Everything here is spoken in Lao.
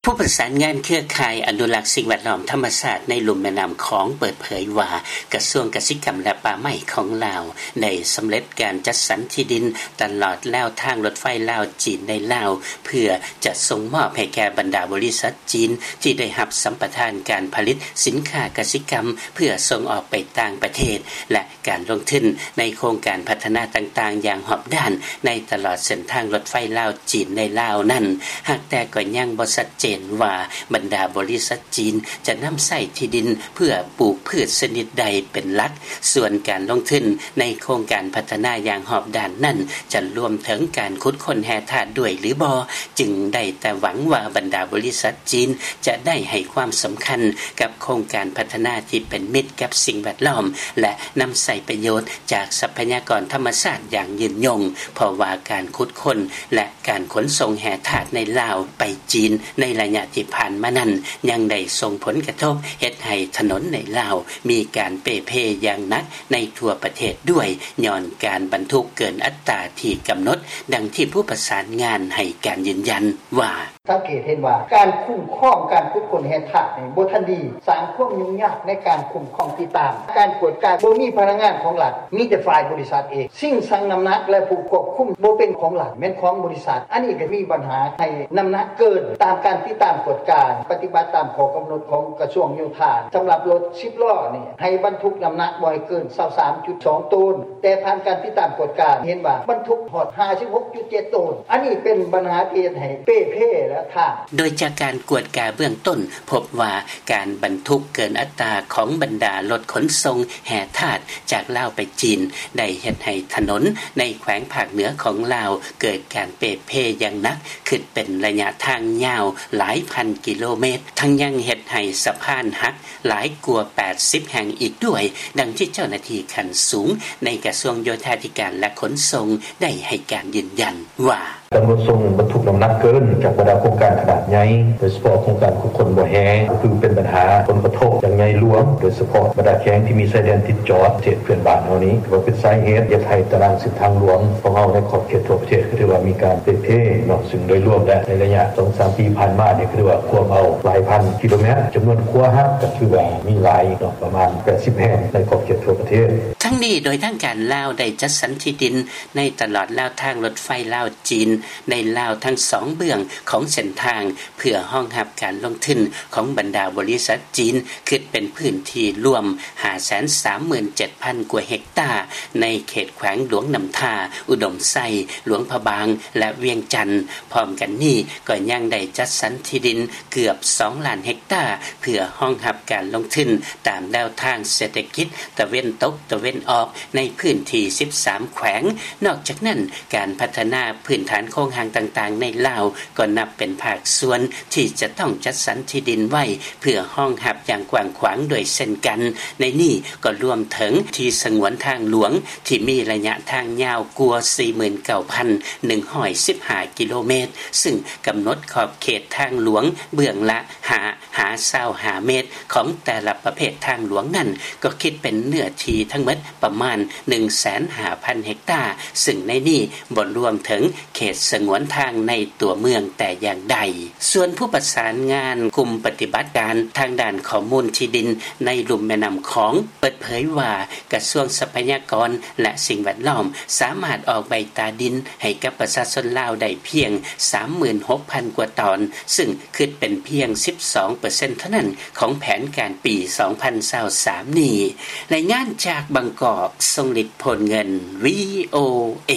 ຜູ້ປະສານງານເຄືອຂ່າຍອະນຸລັກສິ່ງແວດລ້ອມທຳມະຊາດໃນລຸ່ມແມ່ນ້ຳຂອງ ເປີດເຜີຍວ່າ ກະຊວງກະສິກຳ ແລະ ປ່າໄມ້ຂອງລາວ ໄດ້ສຳເລັດການຈັດສັນທີ່ດິນຕະຫຼອດແນວທາງລົດໄຟລາວ-ຈີນ ໃນລາວ ເພື່ອຈະສົ່ງມອບໃຫ້ແກ່ບັນດາບໍລິສັດຈີນ ທີ່ໄດ້ຮັບສຳປະທານການຜະລິດສິນຄ້າກະສິກຳ ເພື່ອສົ່ງອອກໄປຕ່າງປະເທດ ແລະ ການລົງທຶນໃນໂຄງການພັດທະນາຕ່າງໆຢ່າງຮອບດ້ານ ໃນຕະຫຼອດເສັ້ນທາງລົດໄຟລາວ-ຈີນໃນລາວນັ້ນ ຫາກແຕ່ກໍຍັງບໍ່ຊັດເຈນວ່າ ບັນດາບໍລິສັດຈີນຈະນຳໃຊ້ທີ່ດິນເພື່ອປູກພືດຊະນິດໃດເປັນຫຼັກ. ສ່ວນການລົງທຶນໃນໂຄງການພັດທະນາຢ່າງຮອບດ້ານນັ້ນ ຈະລວມເຖິງການຂຸດຄົ້ນແຮ່ທາດດ້ວຍຫຼືບໍ່ ຈຶ່ງໄດ້ແຕ່ຫວັງວ່າບັນດາບໍລິສັດຈີນຈະໄດ້ໃຫ້ຄວາມສຳຄັນກັບໂຄງການພັດທະນາທີ່ເປັນມິດກັບສິ່ງແວດລ້ອມ ແລະ ນຳໃຊ້ປະໂຫຍດຈາກຊັບພະຍາກອນທຳມະຊາດຢ່າງຍືນຍົງ ເພາະວ່າການຂຸດຄົ້ນ ແລະ ການຂົນສົ່ງແຮ່ທາດໃນລາວໄປຈີນໃນໄລຍະທີ່ຜ່ານມານັ້ນ ຍັງໄດ້ສົ່ງຜົນກະທົບເຮັດໃຫ້ຖະໜົນໃນລາວມີການເປ່ເພຢ່າງໜັກໃນທົ່ວປະເທດດ້ວຍ ຍ້ອນການບັນທຸກເກີນອັດຕາທີ່ກຳນົດ, ດັ່ງທີ່ຜູ້ປະສານງານໃຫ້ການຢືນຢັນວ່າ: ສັງເກດເຫັນວ່າການຄຸ້ມຄອງການຂຸດຄົ້ນແຮ່ທາດນີ້ບໍ່ທັນດີ, ສ້າງຄວາມຫຍຸ້ງຍາກໃນການຄຸ້ມຄອງຕິດຕາມ, ການກວດກາບໍ່ມີພະນັກງານຂອງລັດ, ມີແຕ່ຝ່າຍບໍລິສັດເອງ, ສິ່ງຊັ່ງນ້ຳໜັກ ແລະ ຜູ້ຄວບຄຸມບໍ່ເປັນຂອງລັດ, ແມ່ນຂອງບໍລິສັດ. ອັນນີ້ກໍມີບັນຫາໃຫ້ນ້ຳໜັກເກີນ. ຕາມການຕິດຕາມກວດກາ ປະຕິບັດຕາມຂໍ້ກຳນົດຂອງກະຊວງໂຍທາ ສຳລັບລົດສິບລໍ້ນີ້ ໃຫ້ບັນທຸກນ້ຳໜັກບໍ່ໃຫ້ເກີນຊາວສາມຈຸດສອງໂຕນ, ແຕ່ຜ່ານການຕິດຕາມກວດກາເຫັນວ່າບັນທຸກຮອດຫ້າສິບຫົກຈຸດເຈັດໂຕນ. ອັນນີ້ເປັນບັນຫາທີ່ເຮັດໃຫ້ເປ່ເພ ແລະ ທາງ. ໂດຍຈາກການກວດກາເບື້ອງຕົ້ນ ພົບວ່າການບັນທຸກເກີນອັດຕາຂອງບັນດາລົດຂົນສົ່ງແຮ່ທາດຈາກລາວໄປຈີນ ໄດ້ເຮັດໃຫ້ຖະໜົນໃນແຂວງພາກເໜືອຂອງລາວເກີດການເປ່ເພຢ່າງໜັກ, ຂຶ້ນເປັນໄລຍະທາງຍາວຫຼາຍພັນກິໂລເມດ, ທັງຍັງເຮັດໃຫ້ສະພານຫັກ ຫຼາຍກວ່າແປດສິບແຫ່ງອີກດ້ວຍ, ດັ່ງທີ່ເຈົ້າໜ້າທີ່ຂັ້ນສູງໃນກະຊວງໂຍທາທິການ ແລະ ຂົນສົ່ງໄດ້ໃຫ້ການຢືນຢັນວ່າ: ການຂົນສົ່ງບັນທຸກນ້ຳໜັກເກີນຈາກບັນດາໂຄງການຂະໜາດໃຫຍ່, ໂດຍສະເພາະໂຄງການຂຸດຄົ້ນບໍ່ແຮ່ ກໍຖືເປັນບັນຫາຜົນກະທົບຢ່າງໃຫຍ່ຫຼວງ, ໂດຍສະເພາະບັນດາແຂວງທີ່ມີຊາຍແດນຕິດຈອດປະເທດເພື່ອນບ້ານເຮົານີ້, ຖືວ່າເປັນສາເຫດເຮັດໃຫ້ຕາລາງເສັ້ນທາງຫຼວງຂອງເຮົາໃນຂອບເຂດທົ່ວປະເທດ ກໍຖືວ່າມີການເປ່ເພເນາະ. ຊຶ່ງໂດຍລວມແລ້ວ ໃນໄລຍະສອງສາມປີຜ່ານມານີ້ ກໍຖືວ່າກວມເອົາຫຼາຍພັນກິໂລແມັດ, ຈຳນວນຂົວຫັກກໍຖືວ່າມີຫຼາຍເນາະ ປະມານແປດສິບແຫ່ງໃນຂອບເຂດທົ່ວປະເທດ. ທັງນີ້ ໂດຍທາງການລາວໄດ້ຈັດສັນທີ່ດິນໃນຕະຫຼອດແນວທາງລົດໄຟລາວ-ຈີນ ໃນລາວທັງສອງເບື້ອງຂອງເສັ້ນທາງ ເພື່ອຮອງຮັບການລົງທຶນຂອງບັນດາບໍລິສັດຈີນ ຄິດເປັນພື້ນທີ່ລວມຫ້າແສນສາມໝື່ນເຈັດພັນກວ່າເຮັກຕາ ໃນເຂດແຂວງຫຼວງນ້ຳທາ, ອຸດົມໄຊ, ຫຼວງພະບາງ ແລະ ວຽງຈັນ. ພ້ອມກັນນີ້ ກໍຍັງໄດ້ຈັດສັນທີ່ດິນເກືອບສອງລ້ານເຮັກຕາ ເພື່ອຮອງຮັບການລົງທຶນຕາມແນວທາງເສດຖະກິດຕາເວັນຕົກຕາເວັນອອກ ໃນພື້ນທີ່ສິບສາມແຂວງ. ນອກຈາກນັ້ນ, ການພັດທະນາພື້ນຖານໂຄງຮ່າງຕ່າງໆໃນລາວ ກໍນັບເປັນພາກສ່ວນທີ່ຈະຕ້ອງຈັດສັນທີ່ດິນໄວ້ ເພື່ອຮອງຮັບຢ່າງກວ້າງຂວາງດ້ວຍເຊັ່ນກັນ. ໃນນີ້ກໍລວມເຖິງທີ່ສະຫງວນທາງຫຼວງ ທີ່ມີໄລຍະທາງຍາວກວ່າສີ່ໝື່ນເກົ້າພັນໜຶ່ງຮ້ອຍສິບຫ້າກິໂລແມັດ, ຊຶ່ງກຳນົດຂອບເຂດທາງຫຼວງເບື້ອງລະຫ້າຫາຊາວຫ້າແມັດ ຂອງແຕ່ລະປະເພດທາງຫຼວງນັ້ນ ກໍຄິດເປັນເນື້ອທີ່ທັງໝົດປະມານໜຶ່ງແສນຫ້າພັນເຮັກຕາ, ຊຶ່ງໃນນີ້ບໍ່ລວມເຖິງເຂດສະຫງວນທາງໃນຕົວເມືອງແຕ່ຢ່າງໃດ. ສ່ວນຜູ້ປະສານງານກຸ່ມປະຕິບັດການທາງດ້ານຂໍ້ມູນທີ່ດິນໃນລຸ່ມແມ່ນ້ຳຂອງ ເປີດເຜີຍວ່າ ກະຊວງຊັບພະຍາກອນ ແລະ ສິ່ງແວດລ້ອມ ສາມາດອອກໃບຕາດິນໃຫ້ກັບປະຊາຊົນລາວໄດ້ພຽງສາມໝື່ນຫົກພັນກວ່າຕອນ, ຊຶ່ງຄິດເປັນພຽງສິບສອງເປີເຊັນເທົ່ານັ້ນຂອງແຜນການປີສອງພັນຊາວສາມນີ້. ລາຍງານຈາກບາງກອກ, ຊົງລິດ ໂພນເງິນ, ວີໂອເອ.